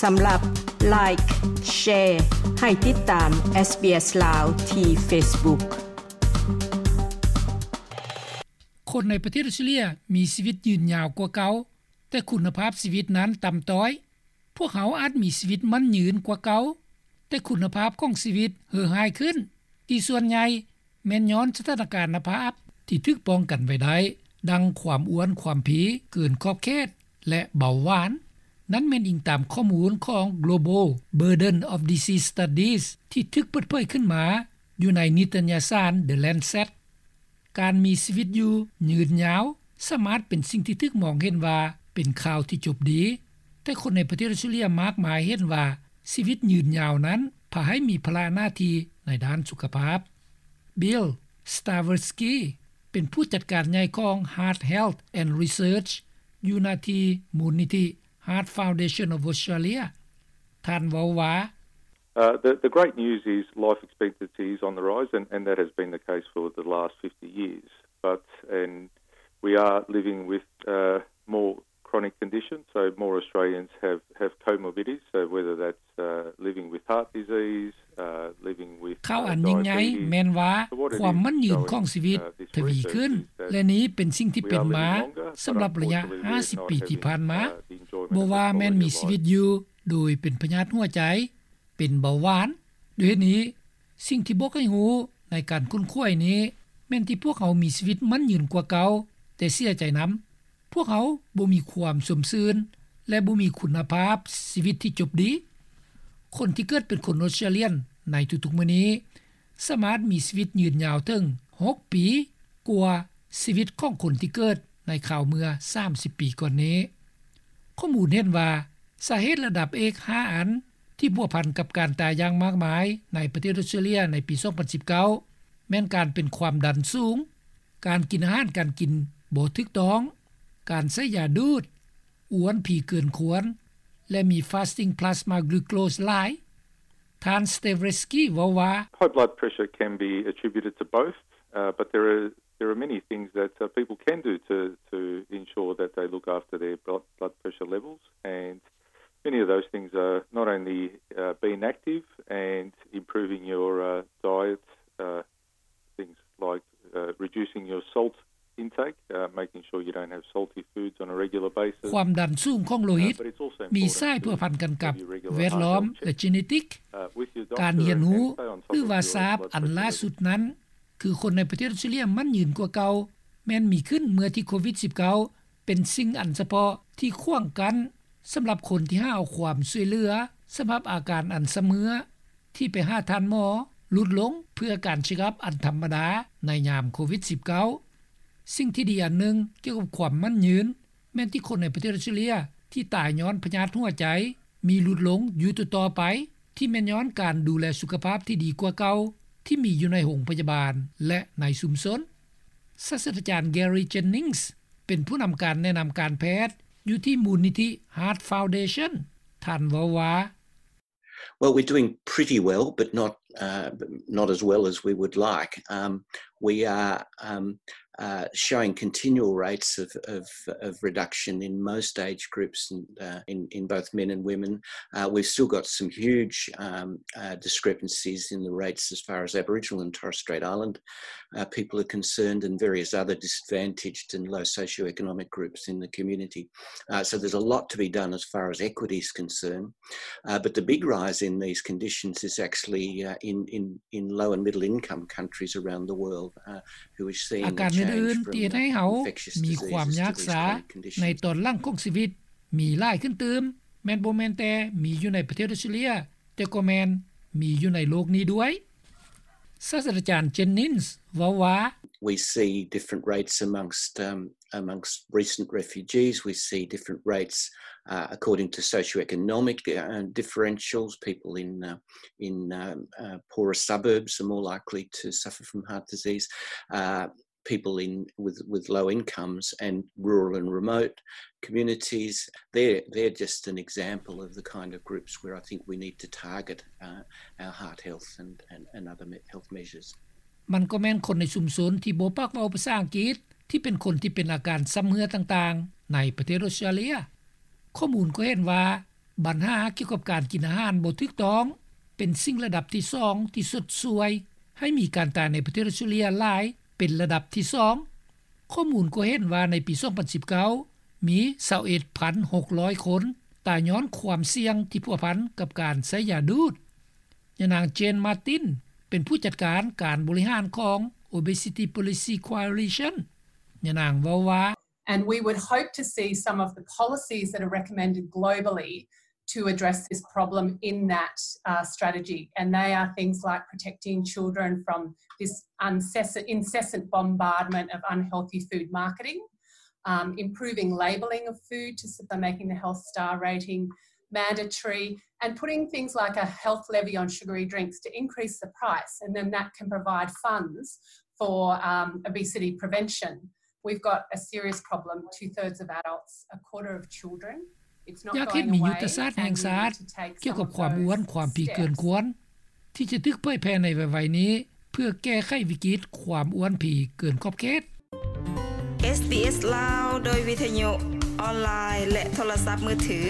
ສຳລັບ Like, Share ໃຫ້ຕິດຕາມ SBS ລາວ ທີ່ Facebook. ຄົນໃນປະເທດອົດສະຕຣາເລຍມີຊີວິດຍືນຍາວກວ່າເກົ່າ, ແຕ່ຄຸນນະພາບຊີວິດນັ້ນຕ່ຳຕ້ອຍ. ພວກເຮົາອາດມີຊີວິດໝັ້ນຍືນກວ່າເກົ່າ, ແຕ່ຄຸນນະພາບຂອງຊີວິດເຫື່ອຫາຍຂຶ້ນ, ທີ່ສ່ວນໃຫຍ່ແມ່ນຍ້ອນສະຖານະການນະພາບທີ່ຖືກປ້ອງກັນໄວ້ໄດ້, ດັ່ງຄວາມອ້ວນ, ຄວາມພີເກີນຂອບເຂດ ແລະ ເບົາຫວານ. ນັ້ນແມ່ນອີງຕາມຂໍ້ມູນຂອງ Global Burden of Disease Studies ທີ່ຖືກເປີດເຜີຍຂຶ້ນມາຢູ່ໃນນິຕະຍະສານ The Lancet. ການມີຊີວິດຢູ່ຍືນຍາວສາມາດເປັນສິ່ງທີ່ຖືກມອງເຫັນວ່າເປັນຂ່າວທີ່ຈົບດີ, ແຕ່ຄົນໃນປະເທດອົດສະຕຣາເລຍມາກມາຍເຫັນວ່າຊີວິດຍືນຍາວນັ້ນພາໃຫ້ມີພາລະໜ້າທີ່ໃນດ້ານສຸຂະພາບ. Bill Staversky ເປັນຜູ້ຈັດການໃຫຍ່ຂອງ Heart Health and Research ຢູ່ໜ້າທີ່ມູນນິທິ Heart Foundation of Australia. ທ່ານເວົ້າວ່າ Uh, the, the great news is life expectancy is on the rise, and, and that has been the case for the last fifty years. But, and we are living with, uh, more chronic conditions, so more Australians have, have comorbidities, so whether that's, uh, living with heart disease, uh, living with, uh, diabetes, ຂ່າວອັນຍິ່ງໃຫຍ່ແມ່ນວ່າຄວາມໝັ້ນຍືນຂອງຊີວິດທະວີຂຶ້ນ, ແລະ ນີ້ເປັນສິ່ງທີ່ເປັນມາສຳລັບໄລຍະຫ້າສິບປີທີ່ຜ່ານມາ. ບໍ່ວ່າແມ່ນມີຊີວິດຢູ່ໂດຍເປັນພະຍາດຫົວໃຈ, ເປັນເບົາຫວານ. ດ້ວຍເຫດນີ້, ສິ່ງທີ່ບອກໃຫ້ຮູ້ໃນການຄົ້ນຄວ້ານີ້ແມ່ນທີ່ພວກເຮົາມີຊີວິດໝັ້ນຍືນກວ່າເກົ່າ, ແຕ່ເສຍໃຈນຳ, ພວກເຮົາບໍ່ມີຄວາມຊົມຊື່ນ ແລະ ບໍ່ມີຄຸນນະພາບຊີວິດທີ່ຈົບດີ. ຄົນທີ່ເກີດເປັນຄົນອົດສະຕຣາເລຍນໃນທຸກໆມື້ນີ້ ສາມາດມີຊີວິດຍືນຍາວເຖິງຫົກປີກວ່າຊີວິດຂອງຄົນທີ່ເກີດໃນຄາວເມື່ອສາມສິບປີກ່ອນນີ້. ຂໍ້ມູນເຫັນວ່າສາເຫດລະດັບເອກຫ້າອັນທີ່ພົວພັນກັບການຕາຍຢ່າງມາກມາຍໃນປະເທດອົດສະຕຣາເລຍໃນປີສອງພັນສິບເກົ້າ ແມ່ນການເປັນຄວາມດັນສູງ, ການກິນອາຫານການກິນບໍ່ຖືກຕ້ອງ, ການໃຊ້ຢາດູດ, ອ້ວນພີເກີນຄວນ ແລະ ມີ fasting plasma glucose ຫຼາຍ. ທ່ານ Staversky ເວົ້າວ່າ High blood pressure can be attributed to both, uh, but there are, there are many things that, uh, people can do to, to ensure that they look after their blood, blood pressure levels, and many of those things are not only, uh, being active and improving your, uh, diet, uh, things like, uh, reducing your salt intake, uh, making sure you don't have salty foods on a regular basis. ຄວາມດັນສູງຂອງໂລຫິດມີສາຍພົວພັນກັນກັບແວດລ້ອມ ແລະ ເຈເນຕິກ. ການຮຽນຮູ້ ຫຼືວ່າຊາບອັນລ່າສຸດນັ້ນ ຄືຄົນໃນປະເທດອົດສະຕຣາເລຍໝັ້ນຍືນກວ່າເກົ່າ ແມ່ນມີຂຶ້ນເມື່ອທີ່ໂຄວິດສິບເກົ້າ ເປັນສິ່ງອັນສະເພາະທີ່ຂວາງກັ້ນສຳລັບຄົນທີ່ຫາເອົາຄວາມຊ່ວຍເຫຼືອສຳລັບອາການອັນຊຳເຮື້ອ ທີ່ໄປຫາທ່ານໝໍຫຼຸດລົງເພື່ອການເຊັກອັບອັນທຳມະດາໃນຍາມໂຄວິດສິບເກົ້າ. ສິ່ງທີ່ດີອັນໜຶ່ງກ່ຽວກັບຄວາມໝັ້ນຍືນ ແມ່ນທີ່ຄົນໃນປະເທດອົດສະຕຣາເລຍທີ່ຕາຍຍ້ອນພະຍາດຫົວໃຈມີຫຼຸດລົງຢູ່ຕໍ່ໆໄປ ທີ່ແມ່ນຍ້ອນການດູແລສຸຂະພາບທີ່ດີກວ່າເກົ່າທີ່ມີຢູ່ໃນໂຮງພະຍາບານ ແລະ ໃນຊຸມຊົນ. ສາດສະດາຈານ Gary Jennings ເປັນຜູ້ນຳການແນະນຳການແພດຢູ່ທີ່ມູນນິທິ Heart Foundation. ທ່ານເວົ້າວ່າ Well, we're doing pretty well, but not, uh, not as well as we would like. Um, we are, um, uh, showing continual rates of, of, of reduction in most age groups, and, uh, in, in both men and women. Uh, we've still got some huge, um, uh, discrepancies in the rates as far as Aboriginal and Torres Strait Island, uh, people are concerned, and various other disadvantaged and low socioeconomic groups in the community. Uh, so there's a lot to be done as far as equity is concerned. Uh, but the big rise in these conditions is actually, uh, in, in, in low and middle income countries around the world, uh, who is seeing a change from, uh, infectious diseases to these kind of conditions. ອາການອື່ນໆທີ່ເຮັດໃຫ້ເຮົາມີຄວາມຍາກຊ້າໃນຕອນຫຼັງຂອງຊີວິດມີຫຼາຍຂຶ້ນຕື່ມ ແມ່ນບໍ່ແມ່ນແຕ່ມີຢູ່ໃນປະເທດອົດສະຕຣາເລຍ, ແຕ່ກໍແມ່ນມີຢູ່ໃນໂລກນີ້ດ້ວຍ. ສາດສະດາຈານ Jennings ເວົ້າວ່າ We see different rates amongst, um, amongst recent refugees. We see different rates, uh, according to socioeconomic, uh, differentials. People in, uh, in, um, uh, poorer suburbs are more likely to suffer from heart disease. Uh, people in, with, with low incomes and rural and remote communities, they're, they're just an example of the kind of groups where I think we need to target, uh, our heart health and, and, and other me-, health measures. ມັນກໍແມ່ນຄົນໃນຊຸມຊົນທີ່ບໍ່ປາກເວົ້າພາສາອັງກິດ ທີ່ເປັນຄົນທີ່ເປັນອາການຊຳເຮື້ອຕ່າງໆ ໃນປະເທດອົດສະຕຣາເລຍ. ຂໍ້ມູນກໍເຫັນວ່າ ບັນຫາກ່ຽວກັບການກິນອາຫານບໍ່ຖືກຕ້ອງ ເປັນສິ່ງລະດັບທີສອງ ທີ່ຊົດຊ່ວຍໃຫ້ມີການຕາຍໃນປະເທດອອສເຕຣເລັຽຫຼາຍ ເປັນລະດັບທີສອງ. ຂໍ້ມູນກໍເຫັນວ່າໃນປີສອງພັນສິບເກົ້າ ມີຊາວເອັດພັນຫົກຮ້ອຍຄົນຕາຍຍ້ອນຄວາມສ່ຽງທີ່ພົວພັນກັບການໃຊ້ຢາດູດ. ຍານາງ Jane Martin ເປັນຜູ້ຈັດການການບໍລິຫານຂອງ Obesity Policy Coalition. ຍານາງເວົ້າວ່າ And we would hope to see some of the policies that are recommended globally to address this problem in that uh, strategy. And they are things like protecting children from this incessant, incessant bombardment of unhealthy food marketing, um, improving labelling of food to so making the health star rating mandatory, and putting things like a health levy on sugary drinks to increase the price, and then that can provide funds for um, obesity prevention. We've got a serious problem. Two thirds of adults, a quarter of children. ຢາກເຫັນມີຍຸດທະສາດແຫ່ງຊາດກ່ຽວກັບຄວາມອ້ວນ, ຄວາມຜີເກີນຄວນ ທີ່ຈະຖືກເຜີຍແຜ່ໃນໄວໆນີ້ ເພື່ອແກ້ໄຂວິກິດຄວາມອ້ວນຜີເກີນຂອບເຂດ. SBS ລາວ ໂດຍວິທະຍຸ, ອອນລາຍ ແລະ ໂທລະສັບມືຖື.